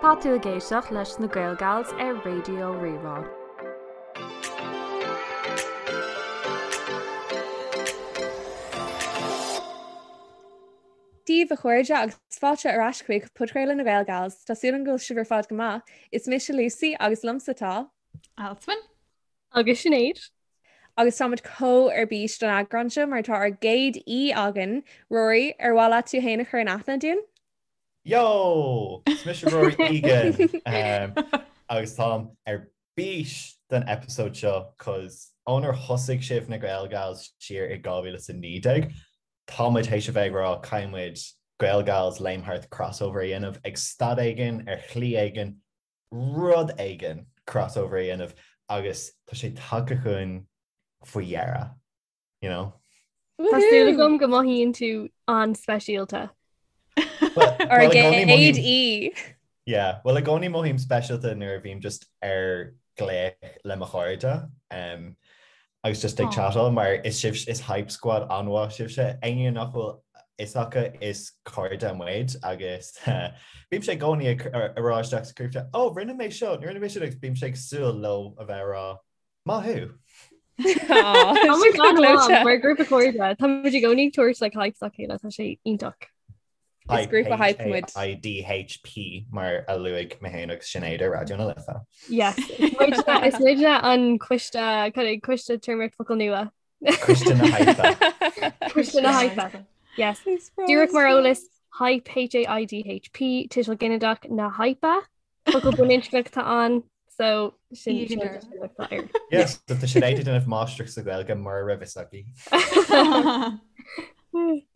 Tá tú ag éisteacht leis na Gaelgals ar Raidió Rí-Rá. Dia daoibh a chairde agus fáilte ar ais chuig Podchraoladh na Gaelgals. Tá súil agam go bhfuil sibh ar fad go maith. Is mise Lucy agus liomsa tá. Alswyn. Agus Sinéad. Agus táimid chomh ar bís don eagrán seo mar tá ár gcéad aoi againn. Rory, ar mhaith leat tú féin a chur in aithne dúinn? Yo! Is mise Rory Egan agus táim ar bís don episode seo cos ónar thosaigh sibh na Gaelgals siar i 2019, tá muid théis a bheith ag rá caithfidh muid Gaelgals Léim Thart crossover a dhéanamh ag staid éigin, ar shlí éigin, rud éigin crossover a dhéanamh agus tá sé tagtha chugainn faoi dheireadh. you know. Tá súil agam go mothaíonn tú an-speisialta. Ár gcéad aoi. Yeah, well i gcónaí mothaím speisialta nuair a bhím just ar glaoch le mo chairde um, agus just ag chatáil mar is sibh is hype squad an-mhaith sibhse. Éinne nach bhfuil fhios acu is cairde muid agus bímse i gcónaí ag rá isteach sa group chat, oh rinne mé seo, rinne mé sin agus bímse ag súil leo a bheith ag rá Maith thú! Tá muid an-mhaith mar grúpa cairde. Tá muid i gcónaí ag tabhairt like hype dá chéile, tá sé iontach. Is grúpa hype muid. H-A-I-D-H-P mar a luaigh mé féin agus Sinéad ar Raidió na Life. Yes. Is muidne an coiste coiste téarmaíocht focal nua. Coiste na hype. Coiste na hype. Yes. Díreach mar eolas hype H-A-I-D-H-P tuiseal ginideach na hype. Focal baininscneach atá ann so sin atá air. Yes, tá Sinéad ag déanamh máistreacht sa Ghaeilge mura raibh fhios aici.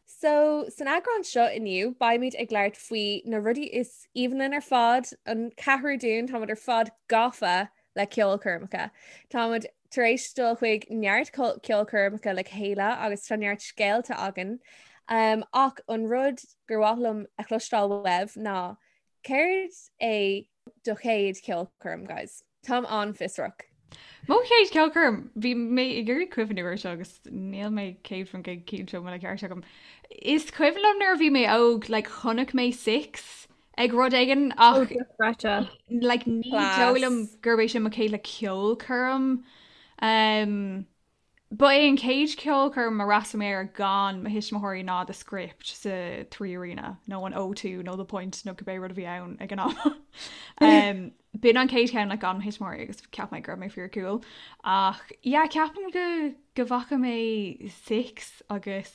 So san eagrán seo inniu beimid ag labhairt faoi na rudaí is aoibhinn linn ar fad, an ceathrú dúinn táimid ar fad gafa le ceolchoirmeacha. Táimid tar éis dul chuig neart ceolchoirmeacha le chéile agus tá neart scéalta againn. Um, ach an rud gur mhaith liom a chloisteáil uaibh ná Céard é do chéad cheolchoirm, guys? Táim an-fhiosrach. Mo chéad cheolchoirm, bhí mé ag iarraidh cuimhniú air seo agus níl mé 100% cinnte an bhfuil an ceart agam. Is cuimhin liom nuair a bhí mé óg, like, chonaic mé Six ag rud éigin ach oh, like, ní dóigh liom gurb é sin mo chéad like, ceolchoirm. Um, Ba é an chéad cheolchoirm a d'fhreastail mé air gan mo thuismitheoirí ná The Script sa Three Arena, nó an O2 nó The Point nó cibé rud a bhí ann ag an am. B'in an chéad cheann like gan mo thuismitheoirí agus cheap mé go raibh mé fíor cool. Ach yeah, ceapaim go go bhfaca mé Six agus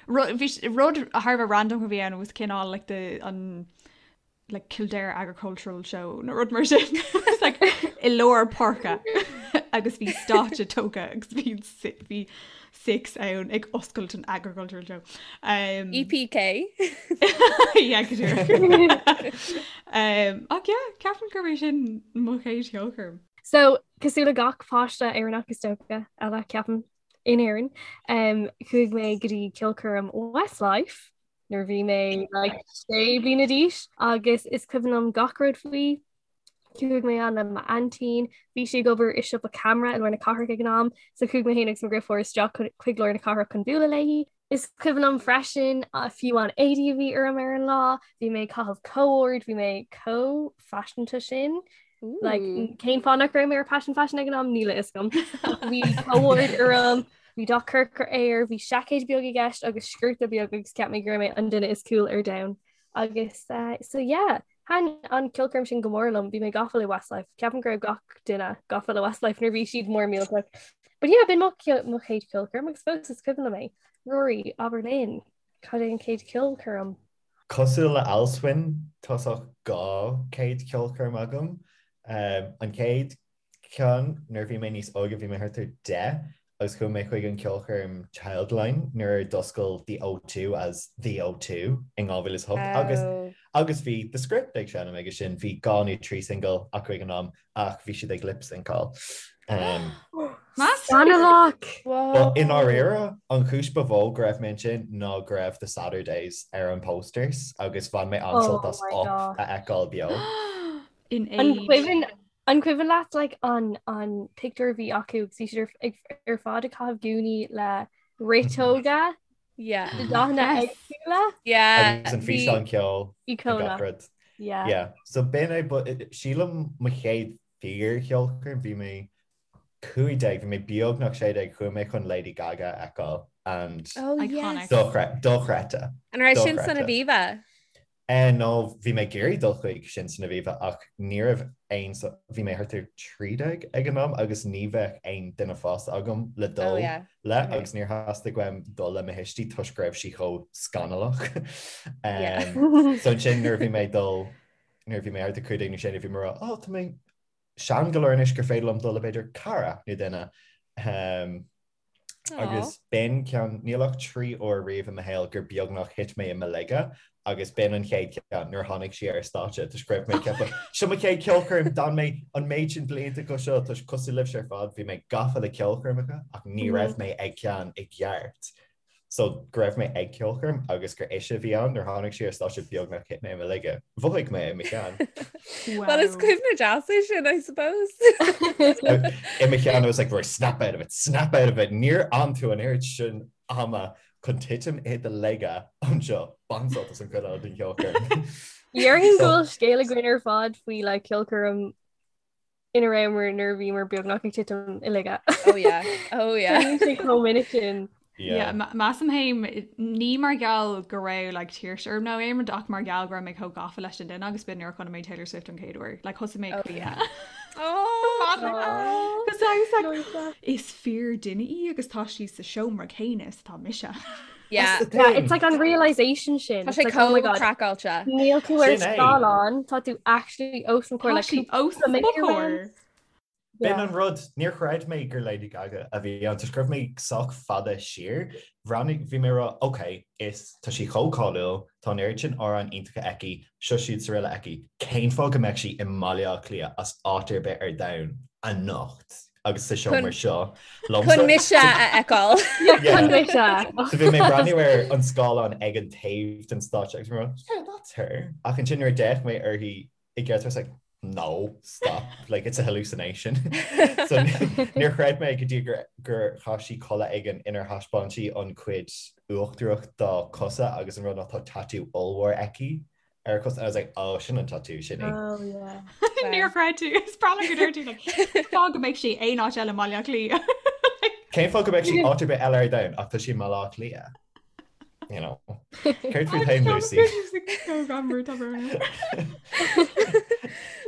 rud rud thar a bheith random a bhí ann was cineál like the an like Kildare Agricultural Show nó rud mar sin like, i lár páirce agus bhí stáitse tógtha agus bhí bhí Six ann ag oscailt an Agricultural Show. Um, EPK yeah, go díreach. um, ach yeah, ceapaim gurb é sin mo chéad cheolchoirm. So cosúil le gach páiste Éireannach is dócha eile ceapaim in Éirinn, um, chuaigh mé go dtí ceolchoirm Westlife nuair a bhí mé like sé bliana d'aois agus is cuimhin liom gach rud faoi. Chuaigh mé ann le m'aintín, bhí sí ag obair i siopa ceamara i lár na cathrach ag an am, so chuaigh mé féin agus mo dheirfiúr isteach chuig lár na cathrach chun bualadh léi. Is cuimhin liom freisin fiú an éadaí a bhí orm ar an lá, bhí mé ag caitheamh co-ord, bhí mé chomh faiseanta sin. Like, cén fáth nach raibh mé ar Passion Fashion ag an am níl a fhios agam. Bhí co-ord orm, bhí dath corcra air, bhí seaicéad beag i gceist agus sciorta beag agus cheap mé go raibh mé an duine is cool ar domhan. Agus uh, so yeah, thaitin an ceolchoirm sin go mór liom, bhí mé gafa le Westlife. Ceapaim go raibh gach duine gafa le Westlife nuair bhí siad mór millteach. But yeah, b'in mo mo chéad cheolchoirm agus fós is cuimhin liom é. Rory, abair linn, cad é an chéad cheolchoirm? Cosúil le Alswyn, tá 2 chéad cheolchoirm agam. An chéad cheann, nuair a bhí mé níos óige, bhí mé thart ar 10 agus chuaigh mé chuig an ceolchoirm Childline nuair a d'oscail The O2 as The O2 in 2008 agus agus bhí The Script ag seinm aige sin, bhí dhá nó trí single acu ag an am ach bhí siad ag lip-syncáil. Scannalach! But i ndáiríre, an chúis ba mhó go raibh mé ansin ná go raibh The Saturdays ar an posters agus bhain mé an-sult as Oh my Up God. a fheiceáil beo. In An age. cuimhin an cuimhin leat like an an pictiúr a bhí acu agus bhí siad ar ag ar fad ag caitheamh gúnaí le riteoga Yeah. de dathanna Yes. éagsúla? Yeah. Agus an Bhí físeán ceoil and Íocónach. gach rud. Yeah. Yeah. So b'in é, but sílim mo chéad fíor-cheolchoirm, bhí mé 15, bhí mé beagnach 16, chuaigh mé chun Lady Gaga a fheiceáil and Oh, Iconic. yes. dochreidte. An raibh sin san Dochreidte. Aviva? Eh, no, bhí mé ag iarraidh dul chuig sin san Aviva ach ní raibh aon, bhí mé thart ar 13 ag an am agus ní bheadh aon duine fásta agam le Oh dul yeah. le Okay. agus níor theastaigh uaim dul le mo thuistí toisc go raibh sí chomh scannalach. Yeah. So ansin nuair a bhí mé ag dul, nuair a bhí mé thart ar 15 nó 16 bhí mé ag rá, oh tá mé sean go leor anois gur féidir liom dul le b'fhéidir cara nó duine. Um, Agus b'in ceann, níl ach 3 uair riamh i mo shaol gur beagnach thit mé i mo laige agus b'in an chéad cheann nuair a tháinig sí ar stáitse toisc go raibh mé ag ceapadh, seo mo chéad ceolchoirm, d'fhan mé an méid sin blianta go seo toisc cosúil libhse ar fad bhí mé gafa le ceolchoirmeacha ach ní raibh mé ag ceann i gceart. So go raibh mé ag ceolchoirm agus gur ise a bhí ann nuair tháinig sí ar stáitse beagnach thit mé i mo laige. Mhothaigh mé i mo cheann. Well is cuimhne deas é sin, I suppose. I mo cheann I was like, right, snap out of it, snap out of it. Níor fhan tú an oiread sin ama chun titim i do laige anseo. Bain sult as an chuid eile den cheolchoirm. Déarfainn go bhfuil scéal againn ar fad faoi le ceolchoirm ina rabhamar nuair a bhíomar beagnach ag titim i laige. Oh yeah, oh yeah. Bíonn sé chomh minic sin. Yeah, measaim féin ní mar gheall go raibh like tuirse orm nó aon rud ach mar gheall go raibh mé chomh gafa leis an duine agus b'in nuair a chonaic mé Taylor Swift an chéad uair. Like thosaigh mé ag Oh caoineadh. yeah. Oh. Because I was like, is fíor duine í agus tá sí sa seomra céanna is atá mise. Yeah. That's the Yeah, thing. it's like an realization sin. Tá It's sé like, oh my chomh God. craiceáilte. Níl tú ar Sin é. scáileán, tá tú actually os mo chomhair Tá like sí os cúpla mo méadar chomhair. uaim. B'in Yeah. an rud, níor chreid mé gur Lady Gaga a bhí ann, toisc go raibh mé sách fada siar. Bhreathnaigh, bhí mé ag rá, ok, is, tá sí chomh cáiliúil, tá an oiread sin amhráin iontacha aici, seo siúd is araile aici, cén fáth go mbeadh sí i mBaile Átha Cliath as áit ar bith ar domhan anocht agus sa seomra seo liomsa? Chun mise a fheiceáil. Yeah, chun mise. So bhí mé ag breathnú ar an scáileán ag an taobh den stáitse agus bhí mé ag rá, yeah, that's her. Ach ansin nuair a d'fhéach mé uirthi i gceart I was like, no, stop, like it's a hallucination. So níor chreid mé go dtí gur gur chaith sí culaith éigin inar thaispeáin sí an cuid uachtarach dá cosa agus an rud ná tá tatú ollmhór aici ar a cos and I was like, oh, sin an tatú, sin í. Oh yeah. Níor chreid tú, is breá liom go deir tú like, cén fáth go mbeadh sí aon áit eile i mBaile Átha Cliath. Cén fáth go mbeadh sí áit ar bith eile ar domhan ach tá sí i mBaile Átha Cliath. You know. Céard fút féin, Lucy?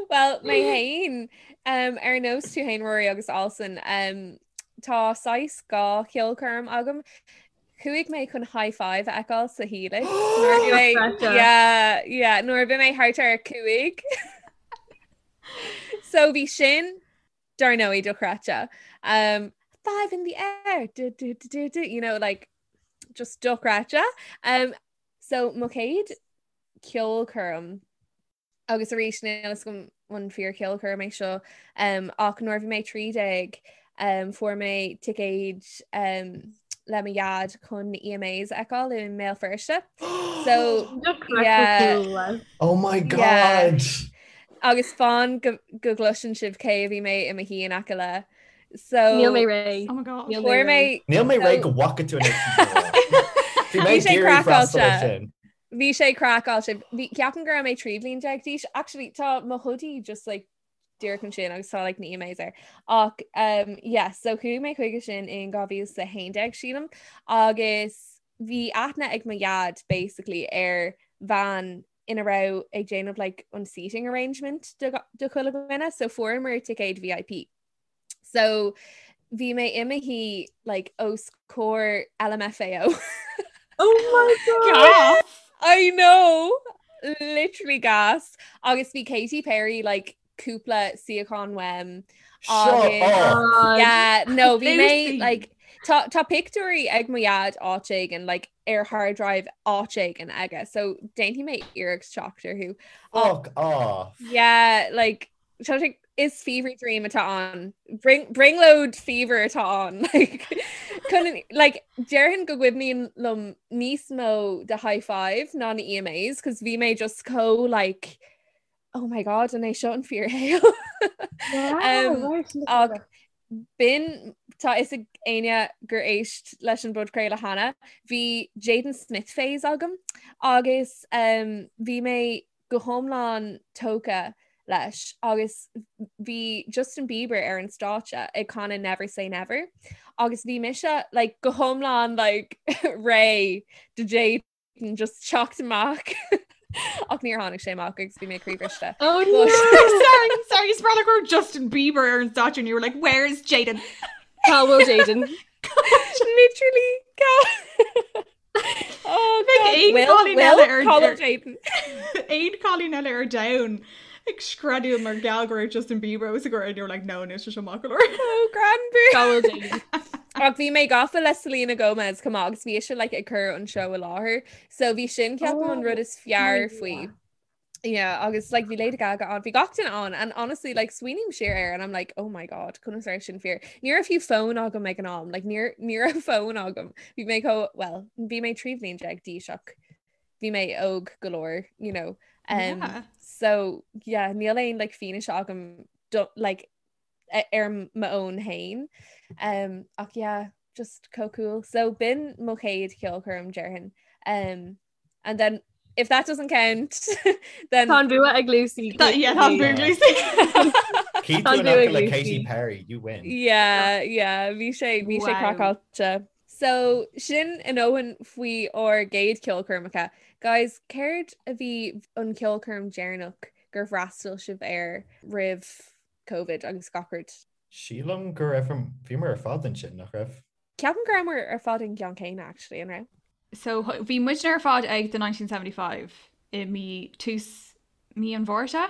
Well, mé féin, um, ar nós tú féin Rory agus Alison, um, tá saghas dhá cheolchoirm agam. Chuaigh mé chun Hi-5 a fheiceáil sa Helix. Nuair a bhí mé- Dochreidte. Yeah, yeah, nuair a bhí mé thart ar 5. So bhí sin dar ndóigh dochreidte. Um, five in the air, du, du, du, du, du, you know, like, just dochreidte. Um, so mo chéad ceolchoirm agus arís níl a fhios agam an fíor cheolchoirm é seo um, ach nuair a bhí mé 13 um, fuair mé ticéid um, le mo dhaid chun na EMAs a fheiceáil i mBéal Feirste. So yeah. Oh my God! Yeah. Agus fan go, go gcloiseann sibh cé a bhí mé i mo shuí in aice le. So Níl mé réidh. Oh my God. Níl fuair mé Níl mé réidh So- go bhfaca tú anois. Bhí mé Bhí sé ag iarraidh freastal air craiceáilte. sin. Bhí sé craiceáilte. Bhí ceapaim go raibh mé 13 bliain d'aois. Actually tá mo hoodie just like díreach ansin agus tá like na EMAs air. Ach um, yeah, so chuaigh mé chuige sin in 2011 sílim agus bhí aithne ag mo dhaid basically ar bhean ina raibh ag déanamh like an seating arrangement do do chuile dhuine, so fuaireamar ticéid VIP. So bhí mé i mo shuí like os comhair LMFAO. Oh my God! Gas! I know! Literally gas. Agus bhí Katy Perry like cúpla suíochán uaim. Shut Agus- up! God. Yeah, no, bhí mé Lucy. like tá tá pictiúirí ag mo dhaid áit éigin like ar hard drive áit éigin aige, so déanfaidh mé iarracht teacht orthu. Fuck off! Yeah, like tá sé is fever dream atá ann. Bring brionglóid fever atá ann. Like chun like déarfainn go gcuimhníonn liom níos mó de Hi-5 ná na EMAs, cos bhí mé just chomh like oh my god, an é seo an fíorshaol? Wow, Um, right, look ach at that. b'in tá fhios ag éinne gur éist leis an bpodchraoladh cheana, bhí Jaden Smith phase agam agus um, bhí mé. go hiomlán tógtha leis agus bhí Justin Bieber ar an stáitse ag canadh Never Say Never agus bhí mise like, go hiomlán like, réidh do Jaden just teacht amach ach níor tháinig sé amach agus bhí mé croíbhriste. Oh no! sorry, sorry, is breá go raibh Justin Bieber ar an stáitse and you were like, where is Jaden? Cá bhfuil Jaden? Literally cá Oh, Bheadh aon God. cailín eile ar- Cá bhfuil ar- Jaden. Aon cailín eile ar domhan ag screadaíl mar gheall go raibh Justin Bieber os a gcomhair and you were like, no, níl sé seo maith go leor. Oh, Granbury. Cá bhfuil Jaden? Ach bhí mé gafa le Selena Gomez chomh maith agus bhí ise like, ag cur an seó i láthair. So bhí sin ceapaim an rud is fearr faoi. Yeah, agus like bhí Lady Gaga ann, bhí gach duine ann and honestly like smaoiním siar air and I'm like oh my god conas a raibh sin fíor. Ní raibh fiú fón agam ag an am, like ní ní raibh fón agam. Bhí mé chomh well bhí mé 13 bhliain d'aois ach bhí mé óg go leor, you know. Um, Yeah. So yeah, níl aon like fianaise agam do, like ar m'fhón féin. Um, ach yeah, just chomh cool. So b'in mo chéad cheolchoirm déarfainn. Um, and then if that doesn't count, then Tá an bua ag Lucy. That, yeah, tá an bua ag Lucy. Keep Tá tú in bua aice ag le Lucy. Katy Perry, you win. Yeah, yeah, bhí sé bhí sé Wow. craiceáilte. So sin a ndóthain faoi ár gcéad ceolchoirmeacha. Guys, céard a bhí an ceolchoirm deireanach gur fhreastail sibh air roimh Covid agus gach rud? Sílim go raibh bhíomar ar fad ansin, nach raibh? Ceapaim go rabhamar ar fad an gceann céanna actually, an raibh? So bhí muidne ar fad ag The 1975 i mí tús mí an Mhárta.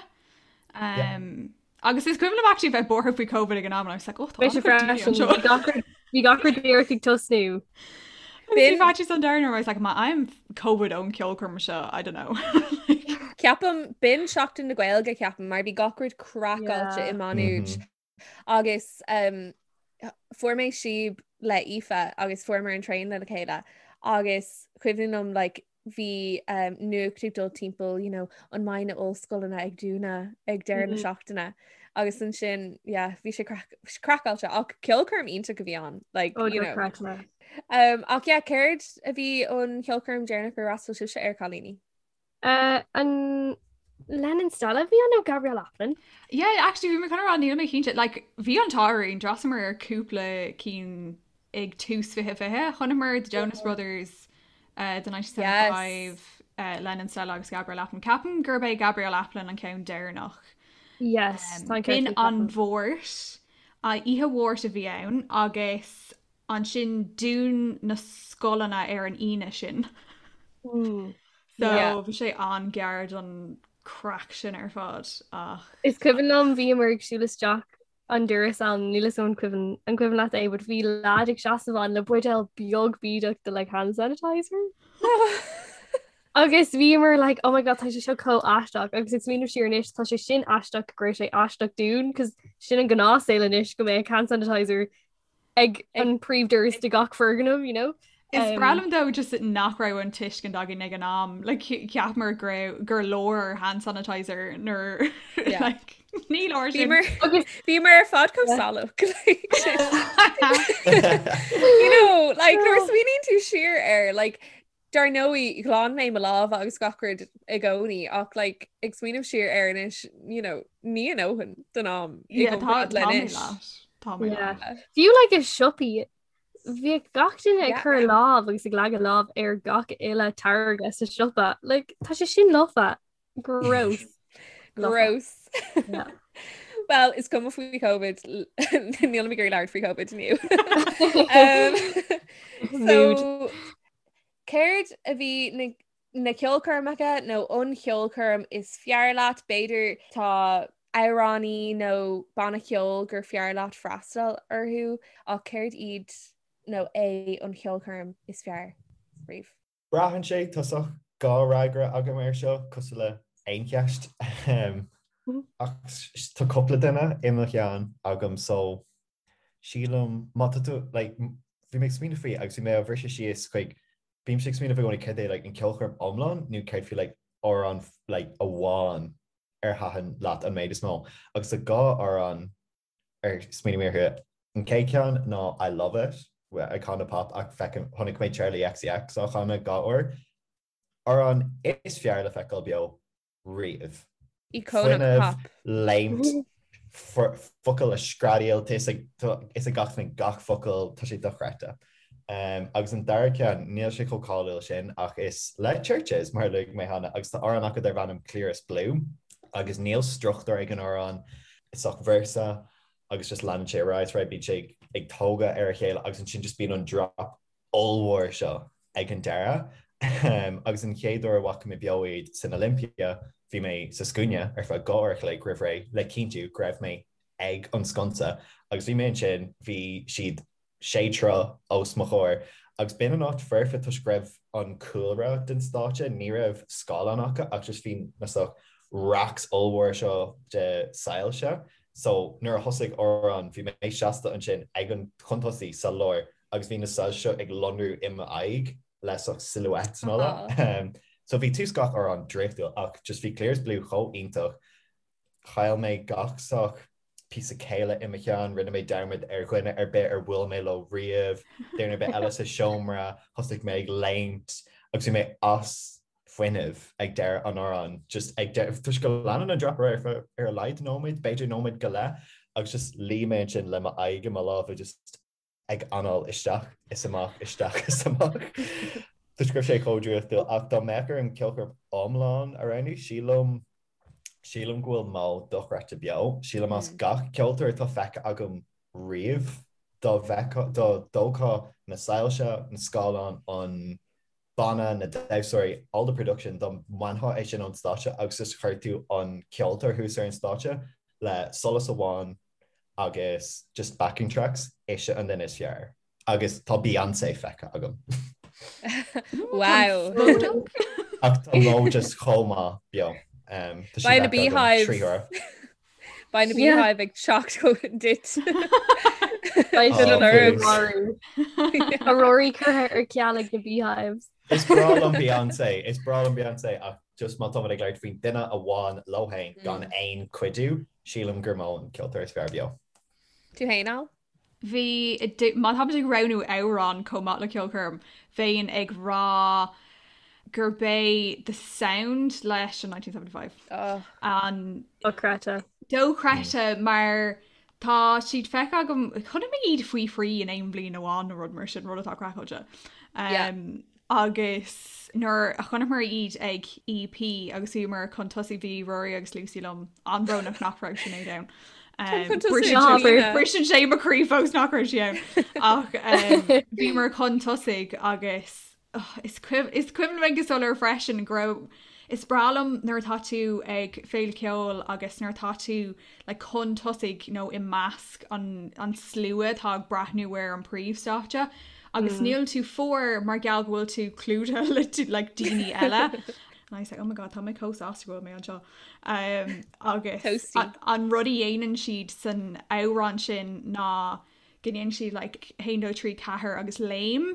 Um, Agus is cuimhin liom actually bheith buartha faoi Covid ag an am and I was like, oh, tá Bhí sé an-chuid daoine freisin. anseo. Bhí gach rud- Bhí gach rud díreach ag tosnú. Bhí faitíos an domhain orm, I was like, má fhaighim Covid ón ceolchoirm seo, I don't know. Ceapaim b'in Seachtain na Gaeilge ceapaim mar bhí gach rud craiceáilte Yeah. i Má Nuad Mhm. agus um, fuair mé síob le Aoife agus fuaireamar an traein le chéile agus cuimhin liom like, bhí um, nuacht ag dul timpeall you know, an mbeidh na ollscoileanna ag dúnadh ag deireadh na Mhm. seachtaine agus ansin yeah, bhí sé craiceáilte ach ceolchoirm iontach a bhí ann like, Oh, you know. dochreidte. Um, ach yeah, céard a bhí an cheolchoirm deireanach gur fhreastail sibhse air cailíní? Uh, an Lennon Stella bhí ann nó Gabrielle Aplin? Yeah, actually bhí mé chun a rá níl mé cinnte, like bhí an t-ádh orainn, d'fhreastalamar ar cúpla cinn ag tús 2020, chonaiceamar The Jonas Brothers, uh, The 1975, Yes. uh, Lennon Stella agus Gabrielle Aplin. Ceapaim gurb é Gabrielle Aplin an ceann deireanach. Yes, Um, tá an B'in ceart an ceapaim. Mháirt, uh, oíche Mháirt a bhí ann agus ansin dún na scoileanna ar an Aoine sin. Mm. So Yeah. bhí sé an-ghearr don craic sin ar fad ach Is cuimhin liom bhíomar ag siúl isteach an doras ann níl a fhios agam an cuimhin an cuimhin leat é, but bhí lad ag seasamh ann le buidéal beag bídeach de like hand sanitizer. Agus bhíomar like oh my god tá sé seo chomh aisteach agus ag smaoineamh siar anois tá sé sin aisteach go raibh sé aisteach dúinn cos sin an gnáthshaol anois go mbeadh hand sanitizer ag an príomhdoras de gach foirgneamh, you know? Is breá liom though just nach raibh an tuiscint againn ag an am like cheapamar go raibh gur leor hand sanitizer nuair Yeah. like ní leor sin. Bhíomar bhíomar ar fad chomh salach like, you know like nuair a smaoiníonn tú siar air like dar ndóigh ghlan mé mo lámha agus gach rud i gcónaí ach like ag smaoineamh siar air anois you know ní a ndóthain don am i Yeah, tá gcomparáid le tá mé anois. leat. Tá mé Yeah. leat. Fiú like i siopaí bhíodh gach duine ag Yeah. cur lámh agus ag leagadh lámh ar gach uile táirge sa siopa. Like tá sé sin lofa. Gross. Lofa. Gross. Yeah. Well, is cuma faoi COVID níl mé ag labhairt faoi COVID inniu. Um, Mood. so céard a bhí na na ceolchoirmeacha nó an cheolchoirm is fearr leat b'fhéidir tá amhránaí nó banna ceoil gur fearr leat freastal orthu ach céard iad nó é an cheolchoirm is fearr riamh? Braitheann sé tá saghas dhá fhreagra agam air seo, cosúil le aon cheist. Ach tá cúpla duine i mo cheann agam so sílim má tá tú like bhí mé ag smaoineamh faoi agus bhí mé á bhriseadh síos chuig bímse ag smaoineamh i gcónaí céard é like an ceolchoirm iomlán nó céard faoi like amhrán like amháin ar thaitin leat an méid is mó agus tá dhá amhrán ar smaoinigh mé orthu. An chéad cheann ná I Love It Icona Pop ach feicim chonaic mé Charli XCX á chanadh dhá uair. Amhrán is fearr le feiceáil beo. riamh. Íocónach pop. Léimt, focail a screadaíl, tá fhios ag gach duine gach focal, tá sé dochreidte. Agus an dara ceann, níl sé chomh cáiliúil sin ach is le Chvrches, mar a luaigh mé cheana, agus tá amhrán acu darb ainm Clearest Blue agus níl struchtúr ag an amhrán, is ach véarsa agus just leanann sé ar aghaidh, right, bíonn sé ag tógadh ar a chéile agus ansin just bíonn an drop ollmhór seo ag an deireadh. Agus an chéad uair a bhfaca mé beo iad san Olympia, bhí mé sa scuaine ar feadh 2 uair a chloig roimh ré le cinntiú go raibh mé ag an sconsa agus bhí mé ansin, bhí siad sé troigh os mo chomhair agus b'in an áit foirfe toisc go raibh an cúlra den stáitse, ní raibh scáileán acu ach just bhí na sort racks ollmhóra seo de soilse. So nuair a thosaigh amhrán bhí mé seasta ansin ag an chun tosaigh sa lár agus bhí na soilse seo ag lonrú i m'aghaidh le sort silhouettes and all that. So bhí tús gach amhrán draíochtúil ach just bhí Clearest Blue chomh iontach. Chaill mé gach sort píosa céille i mo cheann, rinne mé dearmad ar dhuine ar bith ar bhuail mé leo riamh, duine ar bith eile sa seomra, thosaigh mé ag léimt agus bhí mé as fuinneamh ag deireadh an amhráin, just ag deireadh, toisc go leanann an drop ar aghaidh ar a laghad nóiméad, b'fhéidir nóiméad go leith, agus just luigh mé ansin le m'aghaidh i mo lámha just ag anáil isteach is amach, isteach is amach. Toisc go raibh sé chomh draíochtúil, ach dá mbeadh orm ceolchoirm iomlán a roghnú, sílim, sílim go bhfuil Mo dochreidte beo. Sílim as gach ceoltóir atá feicthe agam riamh, dá bhfeicfeá, dá dtógfá na soilse, na scáileáin, an banna, na damhsóirí, all the production, dá mbainfeá é sin ón stáitse agus just chuir tú an ceoltóir thuas ar an stáitse le solas amháin agus just backing tracks, ise an duine is fearr. Agus tá Beyonce feicthe agam. Wow. Ach tá Mo just chomh maith beo. Um, tá sí Beidh na feicthe agam Beehives. 3 huaire. Beidh na Yeah. Beehive ag teacht chugat duit. Beidh Oh, siad an please. marú. Tá Rory curtha ar ceal ag na Beehives. Is breá liom Beyonce, is breá liom Beyonce ach just má táimid ag labhairt faoin duine amháin leo féin gan aon cuidiú, sílim gur Mo an ceoltóir is fearr beo. Tú féin, Al? Bhí, má táimid ag roghnú amhrán chomh maith le ceolchoirm, bheinn ag rá gurb é The Sound leis an 1975 Oh. an Dochreidte. dochreidte mar tá siad feicthe agam, chonaic mé iad faoi thrí in aon bhliain amháin nó rud mar sin, rud atá craiceáilte. Yeah. Um, Agus nuair a chonaiceamar iad ag EP agus bhíomar chun tosaigh bhí Rory agus Lucy liom an-bhrónach nach raibh Sinéad ann. Chun tosaigh Briseann Sinéad. briseann sé mo chroí fós nach raibh sí ann. Ach bhíomar chun tosaigh agus oh, is cuimhin is cuimhin liom go soiléir freisin go raibh is breá liom nuair atá tú ag féile ceoil agus nuair atá tú like chun tosaigh nó i measc an an slua atá ag breathnú ar an príomhstáitse agus níl tú fuar mar gheall go bhfuil tú clúdaithe le like daoine eile. And I was like, oh my god, tá mé chomh sásta go bhfuil mé anseo. Um, agus Toasty. an, an rud a dhéanann siad san amhrán sin ná go ndéanann siad like 1, 2, 3, 4 agus léim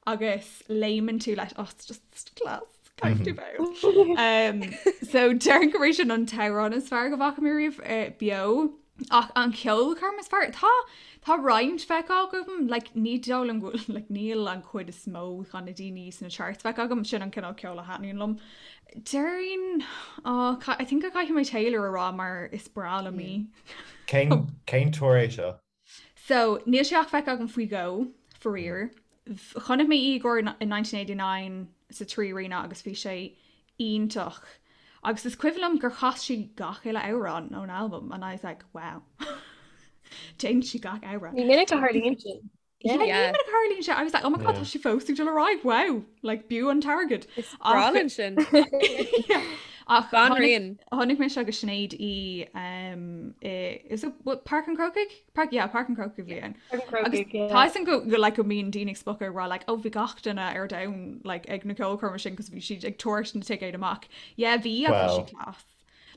agus léimeann tú leis oh, it's just class. Caithfidh tú bheith. Um, so déarfainn gurb é sin an t-amhrán is fearr go bhfaca mé riamh eh, beo. Ach an ceolchoirm is fearr tá tá roinnt feicthe agam like, ní dóigh liom go bhfuil- like, níl an chuid is mó de na daoine sna charts feicthe agam sin an cineál ceoil a thaitníonn liom. Déarfainn oh, ca- I think go caithfidh mé Taylor a rá mar is breá liom í. Cén cén tour é seo? So, níl sé ach feicthe agam faoi dhó, faraor. Chonaic mé í i gcomhair in 1989 sa 3 Arena agus bhí sé iontach. Agus is cuimhin liom gur chas sí gach uile amhrán ón albam and I was like, wow. Déanann sí gach amhrán. Ní minic a tharlaíonn sin. Yeah, ní Yeah. minic a tharlaíonn sé. I was like, oh my god, Yeah. tá sí fós ag dul ar aghaidh, wow. Like, b'fhiú an t-airgead. Is breá linn sin. Yeah. Ach tháinig Banríon. Chonaic mise agus Sinéad í um, i, is it what, Páirc an Chrócaigh? Park, yeah, Páirc an Chrócaigh bhí ann. Páirc an Agus Chrócaigh, yeah. tá fhios agam go, go, like, go mbíonn daoine ag spochadh ag rá like, oh bhí gach duine ar domhan like, ag na ceolchoirme sin cos bhí siad ag tabhairt na ticéid amach. Yeah, bhí ach bhí Well. sí class.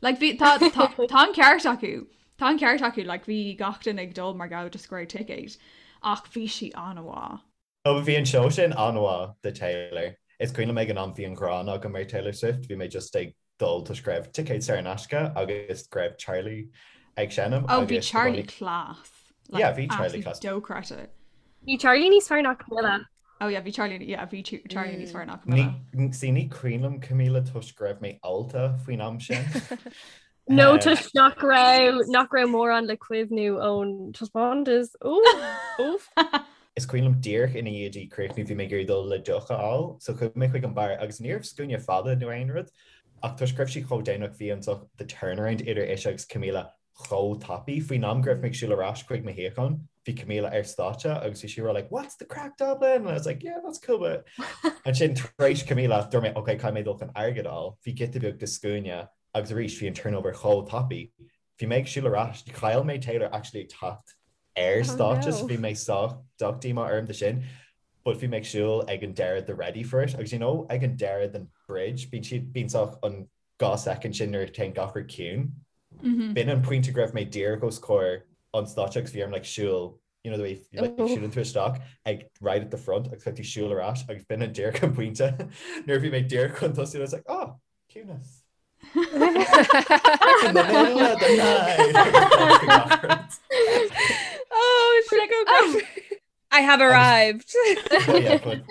Like, bhí, tá, tá, tá an ceart acu. Tá an ceart acu, like, bhí gach duine ag dul mar gheall just go raibh ticéid. Ach bhí sí an-mhaith. Ó bhí an seó sin an-mhaith de Taylor. Is cuimhin liom ag an am bhí an ghráin agam ar Taylor Swift, bhí mé just ag dul toisc go raibh ticéid saor in aisce agus go raibh Charlie ag seinm Oh, bhí agus the Charlie bunny- class. Yeah, bhí Charlie class. Dochreidte. Bhí Charlie níos fearr ná Camila. Oh yeah, bhí Charlie, yeah, bhí Charlie níos fearr ná Camila. Ní, see, ní cuimhin liom Camila toisc go raibh mé ólta faoin am sin. Nó toisc nach raibh nach raibh mórán le cuimhniú ón taispeántas. Oof. Is cuimhin liom díreach ina dhiaidh di críochnú bhí mé ag iarraidh dul le deoch a fháil, so chuaigh mé chuig an bar agus ní raibh scuaine fada nó aon rud ach toisc go raibh sí chomh déanach bhí an the turnaround idir ise agus Camila chomh tapaidh. Faoin am go raibh mé ag siúl ar ais chuig mo shuíochán, bhí Camila ar stáitse agus bhí sí ag rá like what's the craic Dublin? And I was like yeah that's cool but ansin tar éis Camila dúirt mé ok caithfidh mé dul chun airgead a fháil. Bhí giota beag de scuaine agus arís bhí an turnover chomh tapaidh. Bhí mé ag siúl ar ais, chaill mé Taylor actually ag teacht ar stáitse so bhí mé sách sách díomá orm de sin but bhí mé ag siúl ag an deireadh de Ready for It agus you know ag an deireadh den bridge bíonn siad bíonn sách an 2 soicind sin nuair a théann gach rud ciúin. B'in an pointe go raibh mé díreach os comhair an stáitse agus bhí orm like siúl, you know the way like siúlann tú isteach ag right at the front agus caithfidh tú siúl ar ais agus b'in an díreach an pointe nuair a bhí mé díreach chun tosú I was like oh, ciúnas. In the middle of the night. Oh, sin go oh. I have arrived. Well, yeah, but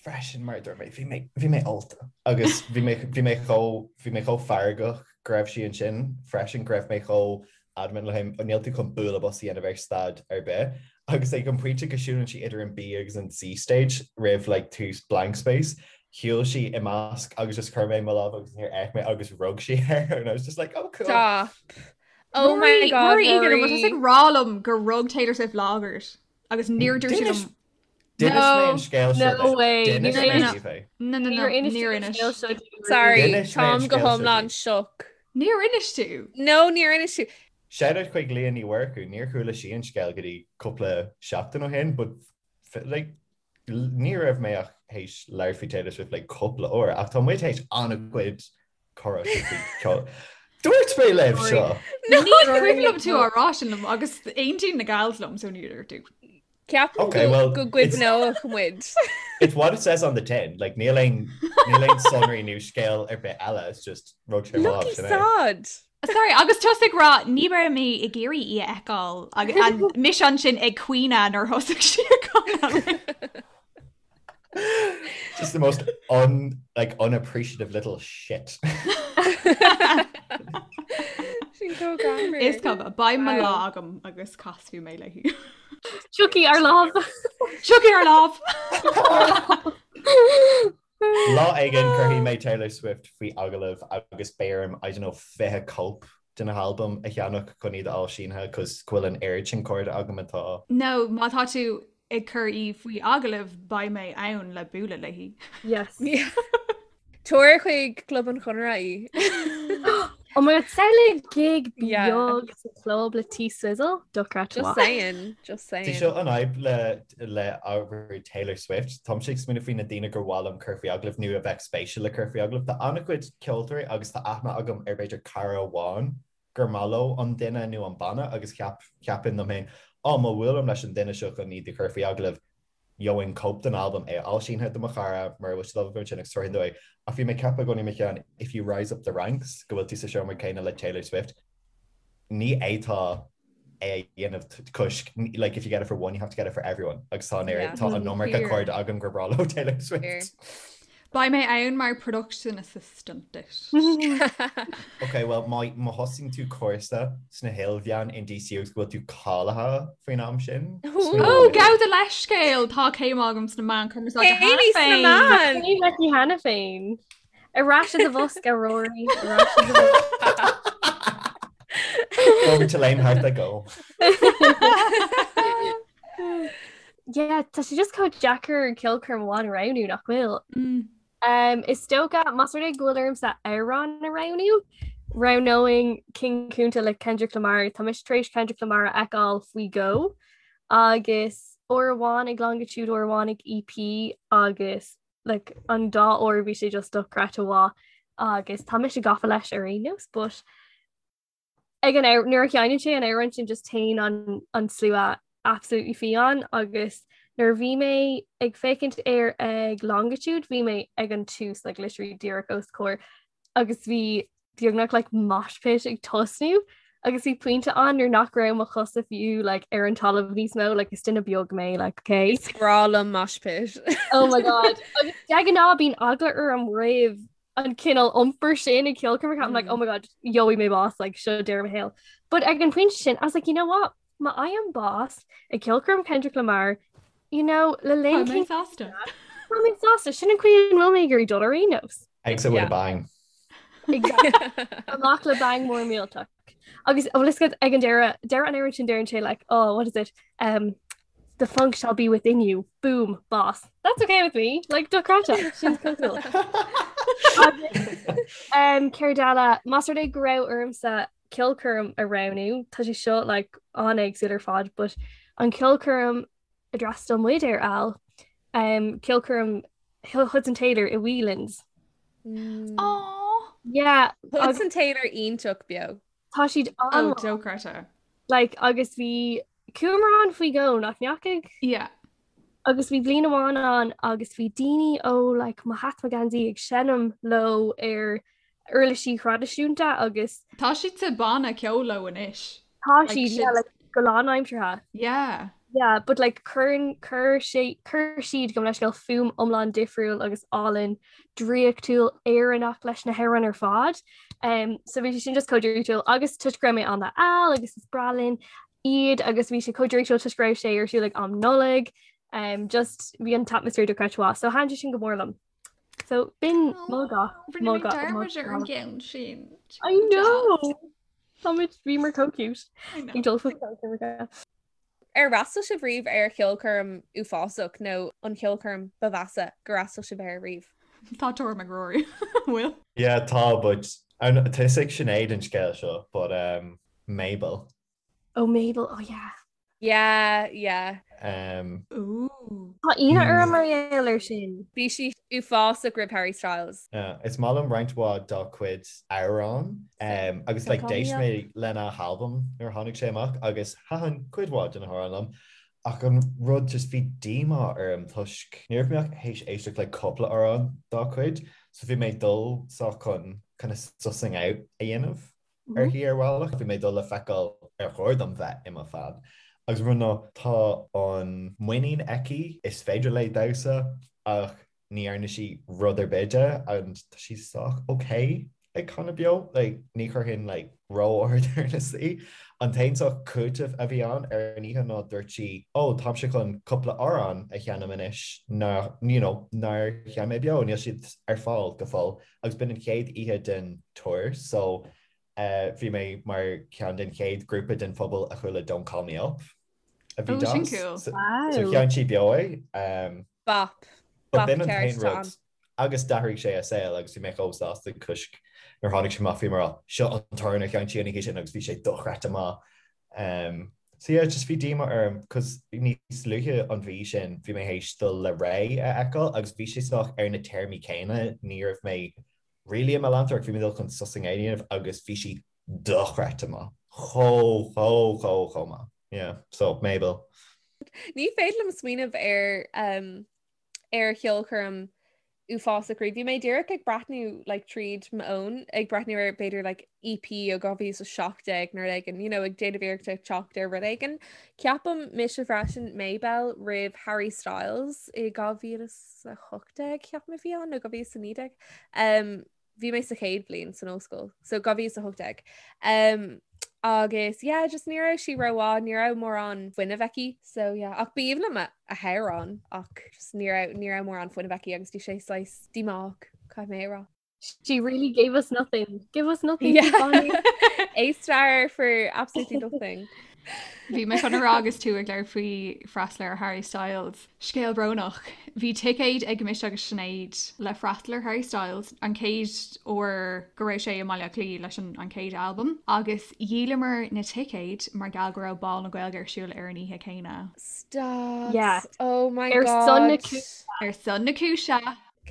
freisin mar dúirt mé, bhí mé, bhí mé ólta agus bhí mé, bhí mé chomh, bhí mé chomh feargach go raibh sí ansin freisin go raibh mé chomh adamant le him, níl tú chun bualadh bos a dhéanamh ar stad ar bith. Agus ag an pointe go siúlann sí idir an B agus an C stage roimh like tús Blank Space, shiúil sí i measc agus just chuir mé mo lámh agus níor fhéach mé agus rug sí air and I was just like, oh cool. Stop. Oh my God, Rory Egan, an bhfuil tusa ag rá liom gur rug Taylor Swift lámh ort? Agus níor dúirt tú liom. D'inis mé an scéal seo No way. D'inis mé daoibh é. No, no, no, níor inis. Sorry, D'inis mé an táim go scéal seo hiomlán daoibh. shook. Níor inis tú. No, níor inis tú. Shout out chuig Leah Ní Mhurchú, níor chuala sí an scéal go dtí cúpla seachtain ó shin, but like, ní raibh mé ach théis labhairt faoi Taylor Swift like cúpla uair, ach tá muid théis an-chuid comhrá faoi ceol. Dúirt mé libh seo! Ní cuimhin liom tú á rá sin liom agus aontaíonn na gals liom so níor dúirt tú. Ceapaim Okay, well, go gcuimhneodh muid. It's what it says on the tin. Like, níl aon níl aon sonraí nó scéal ar bith eile, it's just rug sé mo lámh, Lucky sin é. sod! Sorry, agus tusa ag rá ní raibh mé ag iarraidh í a fheiceáil agus mise ansin ag caoineadh nuair thosaigh sí ag canadh. Just the most un, like, unappreciative little shit. Sin chomh greannmhar. Is cuma, beidh mo lá agam agus casfaidh mé léi. Tiocfaidh ár lá. Tiocfaidh ár lá! Lá éigin cuirfidh mé Taylor Swift faoi agallamh agus beidh orm, I don't know, 20 cóip de na halbaim a cheannach chun iad a fháil sínithe cos go bhfuil an oiread sin cairde agam atá No, má tá tú ag cur í faoi agallamh beidh mé ann le bualadh léi. Yes. Tabhair chuig Club an Chonartha í. Oh my god, samhlaigh gig Yeah. beag sa club le T Swizzle, dochreidte Just mhaith. saying, just Tá saying. seo an fhadhb le le ábhar Taylor Swift. Táimse ag smaoineamh faoi na daoine gur mhaith liom cur faoi agallamh nó a bheadh spéisiúil le cur faoi agallamh. Tá an-chuid ceoltóirí agus tá aithne agam ar b'fhéidir cara amháin gur maith leo an duine nó an banna agus cheap, cheapfainn liom féin, á, má bhuailim leis an duine seo chun iad a chur faoi agallamh, gheobhainn cóip den albam, é a fháil sínithe do mo chara, mura bhfuil siad ábalta ansin agus tabharfainn dó é. Ach bhí mé ag ceapadh i gcónaí i mo cheann, if you rise up the ranks, go bhfuil tú sa seomra céanna le Taylor Swift, ní fhéadfá é a dhéanamh toisc, like, if you get it for one, you have to get it for everyone. Agus tá an oiread, tá an iomarca cairde agam gur breá leo Taylor Swift. Beidh mé ann mar production assistant duit. Ok, well, má má thosaíonn tú cúrsa sna hilmheáin in DCU agus go bhfuil tú cáilithe faoin am sin. Ó, gabh do leithscéal, tá céim agam sna meáin cumarsáide cheana Céimí sna féin. meáin! Céim aici cheana féin. Ar ais i do bhosca, Rory. Ar ais i do bhosca. Over to lame heart I go. Yeah, tá sé just chomh deacair ceolchoirm amháin a roghnú nach bhfuil. Um, is dócha más rud é go bhfuil ormsa amhrán a roghnú, roghnóinn King Kunta le Kendrick Lamar. Tá mise tar éis Kendrick Lamar a fheiceáil faoi dhó agus uair amháin ag Longitude, uair amháin ag EP agus like, an dá uair bhí sé just dochreidte mhaith agus tá mise gafa leis ar aon nós, but ag an nuair a sheinneann sé an amhrán sin just téann an an slua absolutely fiáin agus nuair a bhí mé ag féachaint air ag Longitude bhí mé ag an tús like literally díreach os comhair agus bhí beagnach like mosh pit ag tosnú. Agus bhí pointe ann nuair nach raibh mo chosa fiú like, ar an talamh níos mó, like, is duine beag mé, like, okay? Is breá liom mosh pit. Oh my god. Agus de ghnáth bíonn eagla orm roimh an cineál iompair sin ag ceolchoirmeacha. I'm like, oh my god, gheobhaidh mé bás, like, seo deireadh mo shaoil. But ag an pointe sin, I was like, you know what? Má fhaighim bás ag ceolchoirm Kendrick Lamar, you know, le linn Tá mé sásta. Tá mé sásta, sin an chaoi a bhfuil mé ag iarraidh dul ar aon nós. Exit with a bang. Exactly. Amach le bang mór millteach. Agus bhfuil fhios agat ag an deireadh, deireadh an amhráin sin deireann sé like, oh, what is it? Um, the funk shall be within you. Boom, bás. That's okay with me. Like, dochreidte. Sin cool. Agus, um, céard eile, más rud é go raibh ormsa ceolchoirm a roghnú, tá sé seo like an-éagsúil ar fad, but an ceolchoirm a d'fhreastail muid air Al, um, ceolchoirm Hudson Taylor i Whelan's. Mm. Aww. Yeah. Hudson Taylor iontach beo. Tá siad an Oh, dochreidte. Like, agus bhí chuamar ann faoi dhó nach ndeachaigh? Yeah. Agus bhí bliain amháin ann agus bhí daoine ó like, mo hat mo gheansaí ag seinm leo ar uirlisí thraidisiúnta agus. Tá siad sa banna ceoil leo anois. Tá siad, yeah, like, go lánaimseartha. Yeah. Yeah, but like cuireann cuir sé cuir siad gabh mo leithscéal fuaim iomlán difriúil agus álainn draíochtúil Éireannach leis na hamhráin ar fad. Um, so bhí sé sin just chomh draíochtúil agus toisc go raibh mé ann le Al agus is breá linn iad agus bhí sé chomh draíochtúil toisc go raibh sé ar siúl ag am Nollag. Um, just bhí an t-atmaisféar dochreidte mhaith, so thaitin sé sin go mór liom. So b'in mo go Rinne mé dearmad ar an gceann sin. I know! Táimid bhíomar chomh cute. Ag dul faoi ceolchoirmeacha. Ar fhreastail sibh riamh ar cheolchoirm uafásach nó an cheolchoirm ba mheasa gur fhreastail sibh air riamh? Tá tuairim ag Rory. Bhfuil? Yeah, tá, but tá fhios ag Sinéad an scéal seo, but um, Mabel. Oh Mabel, oh yeah. Yeah, yeah. Um, Ooh. Tá ionadh orm mar gheall air sin. Bhí sí uafásach roimh Harry Styles. Yeah, is maith liom roinnt mhaith dá cuid amhrán um, agus like, d'éist mé lena halbam nuair a tháinig sé amach agus thaitin cuid mhaith de na hamhráin liom. Ach an rud just bhí díomá orm toisc ní raibh mé ach théis éisteacht le cúpla amhrán dá cuid, so bhí mé ag dul sách chun kind of sussing out a dhéanamh. uirthi ar bhealach. Bhí mé ag dul le feiceáil ar chóir dom bheith i mo fan. Agus an rud ná, tá an muinín aici, is féidir léi damhsa ach ní dhearna sí rud ar bith de and tá sí sách ok ag canadh beo. Like, ní chuirfinn like ró-ard ar na í. An t-aon sách cúiteamh a bhí ann ar an oíche ná dúirt sí, oh, táimse chun cúpla amhrán a sheinm anois ná, you know, nár sheinn mé beo, níl siad ar fáil go fóill. Agus b'in an chéad oíche den tour so bhí mé mar cheann den chéad grúpa den phobal a chuala Don't Call Me Up a bhí Oh, sin cool. So Wow. sheinn sí beo é. Bop. But Bop b'in an ceart t-aon rud ann. agus d'athraigh sé a saol agus bhí mé chomh sásta toisc nuair a tháinig sé amach bhí mé ag rá seo an t-amhrán a sheinn sí an oíche sin agus bhí sé dochreidte maith. Um, so yeah, just bhí díomá orm cos níos luaithe an mhí sin bhí mé théis dul le Raye a fheiceáil agus bhí sé sách ar na téarmaí céanna, ní raibh mé really i mo leantóir ach bhí mé dul chun sussing out a dhéanamh agus bhí sí dochreidte maith. Chomh, chomh, chomh, chomh maith. Yeah, so Mabel. Ní féidir liom smaoineamh ar um, ar cheolchoirm uafásach riamh. Bhí mé díreach ag breathnú like, tríd m'fhón, ag breathnú ar b'fhéidir like, EP ó 2017 nó rud éigin, you know, ag déanamh iarracht ag teacht ar rud éigin. Ceapaim mise freisin Mabel roimh Harry Styles i 2018 ceapaim a bhí ann nó 2019. Um, bhí mé sa chéad bhliain san ollscoil, so 2018. Um, agus yeah, just ní raibh sí rómhaith, ní raibh mórán fuinnimh aici, so yeah, ach b'aoibhinn liom a hamhráin ach just ní raibh ní raibh mórán fuinnimh aici agus bhí sé saghas díomách, caithfidh mé a rá. She really gave us nothing. Give us nothing. Yeah. A star for absolutely nothing. Bhí mé chun a rá agus tú ag labhairt faoi freastal ar Harry Styles. Scéal brónach. Bhí ticéid ag mise agus Sinéad le freastal ar Harry Styles, an chéad uair go raibh sé i mBaile Átha Cliath leis an chéad albam, agus dhíolamar na ticéid mar gheall go raibh Bál na Gaeilge ar siúl ar an oíche chéanna. Stop. Yeah. Oh my Ar son na God. cúise. Ar son na cúise!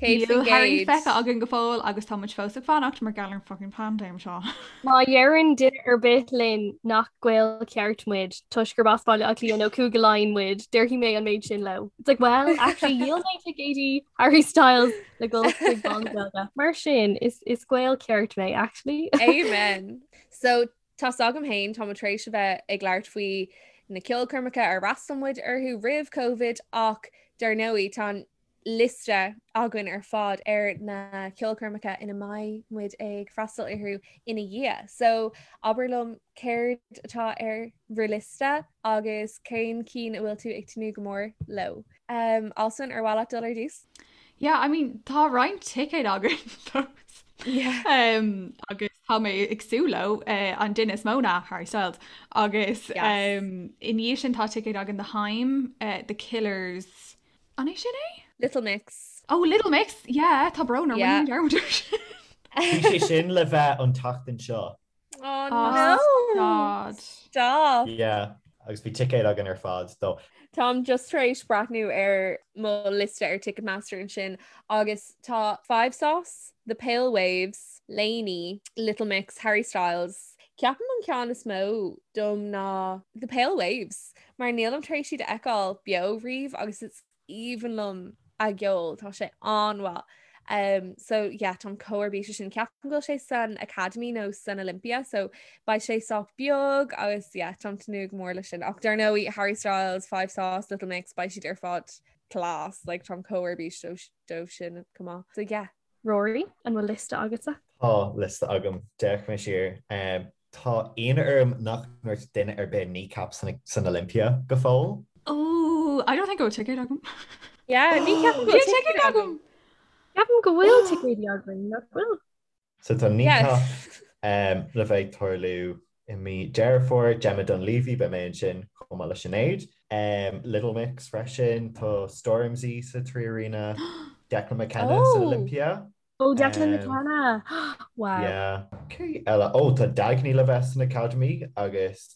100%. Níl Harry feicthe againn go fóill agus tá muid fós ag fanacht mar gheall ar an fucking paindéim seo. Má dheireann duine ar bith linn nach Gael ceart muid toisc gurb as Baile Átha Cliath nó Cúige Laighean muid, déarfaidh mé an méid sin leo. It's like, well, actually dhíol mé ticéidí Harry Styles le dul chuig Bál na Gaeilge. Mar sin, is is Gael ceart mé, actually. Amen. So. Tá's agam féin, táimid tar éis a bheith ag labhairt faoi na ceolchoirmeacha ar fhreastail muid orthu roimh Covid ach dar ndóigh tá an liosta againn ar fad ar na ceolchoirmeacha ina mbeidh muid ag freastal orthu ina dhiaidh. So abair liom céard atá ar bhur liosta agus cén cinn a bhfuil tú ag tnúth go mór leo. Um, Alswyn, ar mhaith leat dul ar dtús? Yeah, I mean, tá roinnt ticéad againn fós. Yeah. Um, agus tá mé ag súil leo uh, an duine is mó ná Harry Styles. Agus Yes. um, i ndiaidh sin tá ticéad againn do Haim, uh, The Killers. An é sin é? Little Mix. Oh, Little Mix, yeah, tá brón orm Yeah. rinne mé dearmad air sin. Bhí sé sin le bheith an tseachtain seo. Oh Oh, no! God. Stop! Yeah, agus bhí ticéid againn ar fad dó. Táim just tar éis breathnú ar mo liosta ar Ticketmaster ansin agus tá 5SOS, The Pale Waves, LANY, Little Mix, Harry Styles. Ceapaim an ceann is mó dom ná The Pale Waves mar nílim tar éis iad a fheiceáil beo riamh agus is aoibhinn liom a gceol, tá sé an-mhaith. Um, so yeah, táim chomh ar bís sin ceapaim go bhfuil sé san Academy nó san Olympia, so beidh sé sách beag agus yeah, táim ag tnúth go mór leis sin. Ach dar ndóigh Harry Styles, 5SOS, Little Mix, beidh siad ar fad class, like, táim chomh ar bís dóibh sin chomh maith. So yeah. Rory, an bhfuil liosta agatsa? Tá liosta agam, d'fhéach mé siar. Um, Tá ionadh orm nach ndúirt duine ar bith Kneecap san Olympia go fóill. Oh, I don't think go bhfuil ticéad agam. Yeah, ní cheapaim go bhfuil ticéad agam. Ceapaim go bhfuil ticéidí againn, nach bhfuil? So tá Kneecap le bheith ag tarlú i mí Deireadh Fómhair, Gemma Dunleavy, beidh mé ansin chomh maith le Sinéad. Little Mix freisin, tá Stormzy sa 3Arena, Declan McKenna san Olympia. Oh, Declan McKenna! Wow. Yeah. Cé eile? Oh, tá Dagny le bheith san Academy agus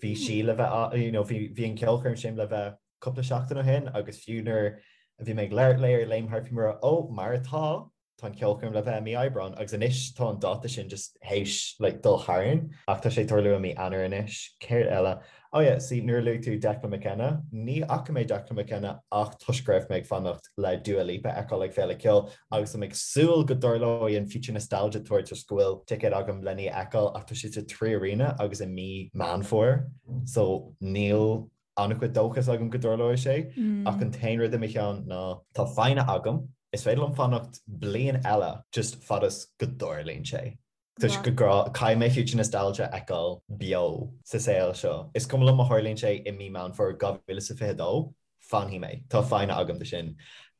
bhí sí le bheith, you know, bhí bhí an ceolchoirm sin le bheith cúpla seachtain ó shin agus fiú nuair a bhí mé ag labhairt léi ar Léim Thart bhí mé ag rá, oh, mar atá, tá an ceolchoirm le bheith i mí Aibreán agus anois tá an dáta sin just théis like dul tharainn ach tá sé ag tarlú i mí Eanáir anois. Céard eile? Oh yeah, see, nuair a luaigh tú Declan McKenna, ní fhaca mé Declan McKenna ach toisc go raibh mé ag fanacht le Dua Lipa a fheiceáil ag Féile Ceoil agus I'm ag súil go dtarlóidh an Future Nostalgia Tour toisc go bhfuil ticéad agam lena í a fheiceáil ach tá sé sa 3Arena agus i mí Meán Fómhair so níl an-chuid dóchas agam go dtarlóidh sé ach an t-aon rud i mo cheann ná tá foighne agam, is féidir liom fanacht bliain eile just fad is go dtarlaíonn sé. Toisc go gcaithfidh mé Future Nostalgia a fheiceáil beo sa saol seo. Is cuma liom má tharlaíonn sé i mí Meán Fómhair 2022, fanfaidh mé. Tá foighne agam do sin.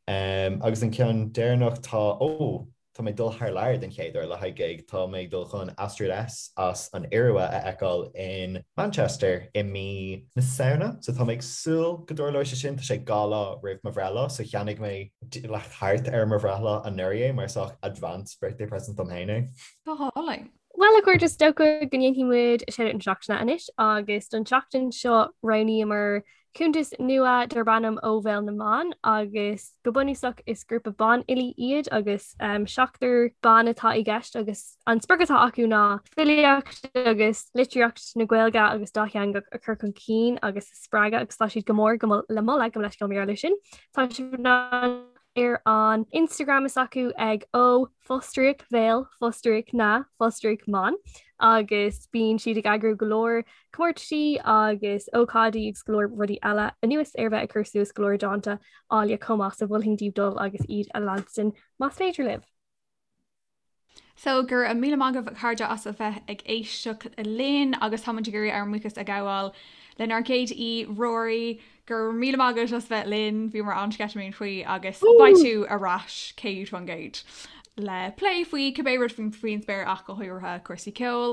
Agus an ceann deireanach, tá, ó, tá mé ag dul thar lear den chéad uair le haghaidh gig. Tá mé ag dul chun Astrid S as an Iorua a fheiceáil in Manchester i mí na Samhna. So tá mé ag súil go dtarlóidh sé sin. Tá sé 2 lá roimh mo bhreithlá, so cheannaigh mé like thart ar mo bhreithlá anuraidh é mar sách advance birthday present dom féin é. Go hálainn. Bhuel a chairde is dócha go ndéanfaidh muid Shout-Out na Seachtaine anois agus don tseachtain seo roghnaíomar cuntas nua darb ainm Ó Bhéal na mBan agus go bunúsach is grúpa banfhilí iad agus um, seachtar ban atá i gceist agus an sprioc atá acu ná filíocht agus litríocht na Gaeilge agus dátheangach a chur chun cinn agus a spreagadh agus tá siad go mór go le moladh gabh mo leithscéal mar gheall air sin. Tá sibh in ann ar an Instagram is acu ag ó fostríoc bhéal fostríoc na fostríoc mban agus bíonn siad ag eagrú go leor comórtaisí agus ócáidí agus go leor rudaí eile anuas ar bheith ag cur suas go leor dánta áille chomh maith so mholfainn daoibh dul agus iad a leanstan más féidir libh. So, go raibh míle maith agaibh a chairde as a bheith ag éisteacht linn agus táimid ag iarraidh ár mbuíochas a ghabháil lenár gcéad aoi, Rory. Go raibh míle maith agat as bheith linn, bhíomar an-sceitimíneach faoi agus beidh tú ar ais 100% le plé faoi cibé rud faoin spéir ach go háirithe cúrsaí ceoil.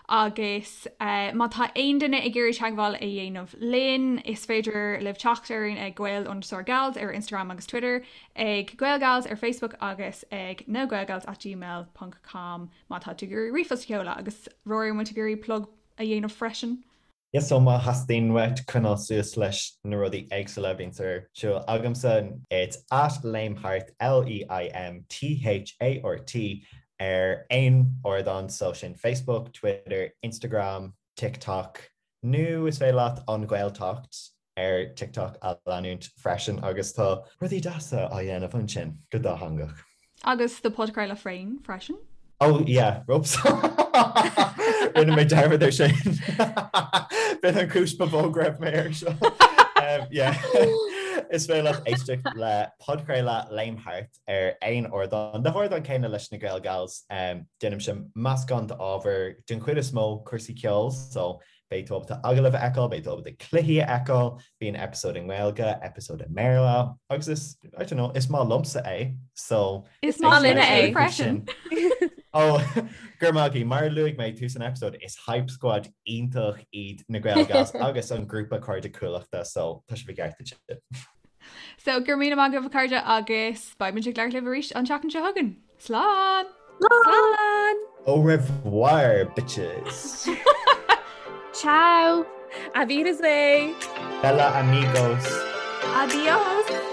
Agus má tá aon duine ag iarraidh teagmháil a dhéanamh linn, is féidir libh teacht orainn ag gael underscore gals ar Instagram agus Twitter, ag Gaelgals ar Facebook agus ag nagaelgals at gmail ponc com má tá tú ag iarraidh ríomhphost a sheoladh. Agus Rory, an bhfuil tú ag iarraidh plug a dhéanamh freisin? Yes, so má theastaíonn uait coinneáil suas leis na rudaí éagsúla a bhíonns ar siúl agamsa, it's at Léimthart, L-E-I-M-T-H-A-R-T, ar aon ardán, so sin Facebook, Twitter, Instagram, TikTok, nó is féidir leat An Ghaeltacht ar TikTok a leanúint freisin agus tá rudaí deasa á dhéanamh ansin go dátheangach. Agus do podchraoladh féin freisin. Oh yeah, whoops. Rinne mé dearmad ar sin. B'in an chúis ba mhó go raibh mé air seo. Yeah. Is féidir leat éisteacht le podchraoladh Léim Thart ar aon ardán, na hardáin céanna leis na Gael Gals. Déanaimse meascán d'ábhar, den chuid is mó cúrsaí ceoil, so Beidh tú ábalta agallaimh a fheiceáil, beidh tú ábalta cluichí a fheiceáil, bíonn eipeasóid i nGaeilge, eipeasóid i mBéarla agus is, I don't know, is maith liomsa é, so. Is maith linne é freisin. Ó, go raibh maith agaibh. Mar a luaigh mé tús an eipeasóid, is hype squad iontach iad na Gael Gals agus an grúpa Cairde Cuallachta, so tá sibh i gceart ansin. So, go raibh míle maith agaibh a chairde agus beidh muid ag labhairt libh arís an tseachtain seo chugainn. Slán! Slán! Au revoir, bitches! Ciao! Auf Wiedersehen! Bella amigos! Adios!